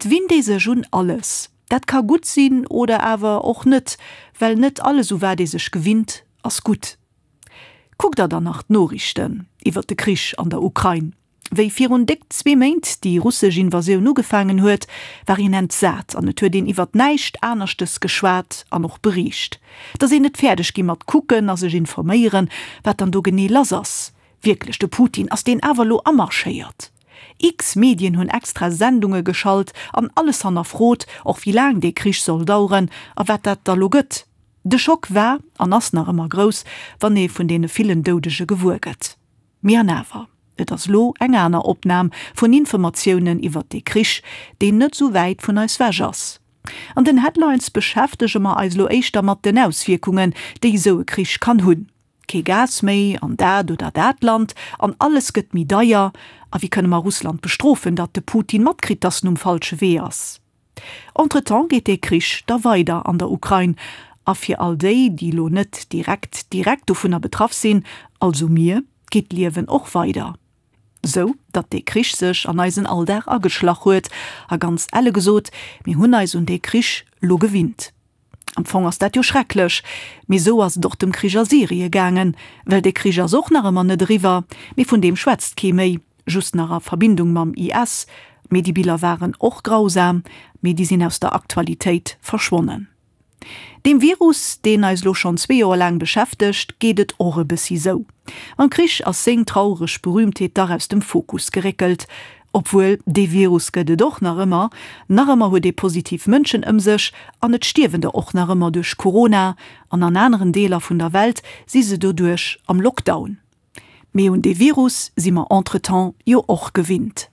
Et winnt ee sech un alles. Dat ka gutt sinn oder awer och net, well net alles u wat ee sech gewinnt, ass gutt. Kuckt der dann nach d'Noriichten iwwert de Krich an der Ukrain? Wéi virun déck zwee Méint déi russesch Invasioun ugefaangen huet, war een entsat an et huet een iwwert näischt anerschtes geschwat an och beriicht. Et ass een net fäerdeg gi mat kucken a sech informéieren, wat dann do genee lass ass. Wierklech, de Putin, ass deen awer elo amarschéiert? X-Medien hunn extra Sendunge geschalt an alles hannerfrot, och wéi laang dee Krich soll daueren a wat dat da lo gëtt. De Schock war an ass nach ëmmer grouss, wann ee vun deene villen Doudege gewuer gëtt. Mee an awer, et ass lo eng aner Opnam vun Informatiounen iwwert dee Krich, deen net sou wäit vun eis wech ass. An den Headlines beschäftege mer eis lo éischter mat den Auswierkungen, déi esou e Krich kann hunn. Kee Gas méi an dat oder dat Land an alles gëtt méi deier. A wéi kënne mer Russland bestrofen, datt de Putin matkritt, datt en um falsche Wee ass? Entretemps geet dee Krich da weider an der Ukrain. A fir all déi, déi lo net direkt direkt dovunner betraff sinn, also mir, geet d'Liewen och weider. Sou datt dee Krich sech an eisen Alldag ageschlach huet. A ganz elle gesot, mir hunn eis un dee Krich lo gewinnt. Am Fong ass dat jo schrecklech, mee sou ass et och dem Krich a Syrie gaangen, well dee Krich ass och nach ëmmer net eriwwer, mee vun deem schwätzt kee méi, just nach a Verbindung mam IS. Mee déi Biller waren och grausam, mee déi sinn aus der Aktualitéit verschwonnen. Deem Virus, deen eis lo schonn zwee Joer laang beschäftegt, geet et och e bëssi sou. Mam Krich ass seng traureg Berühmtheet dach aus dem Fokus geréckelt. Obwuel, dee Virus gëtt et och nach ëmmer. Nach ëmmer huet ee positiv Mënschen ëm sech an et stierwen der och nach ëmmer duerch Corona an an aneren Deeler vun der Welt si se doduerch am Lockdown. Mee un dee Virus si mer entretemps jo och gewinnt.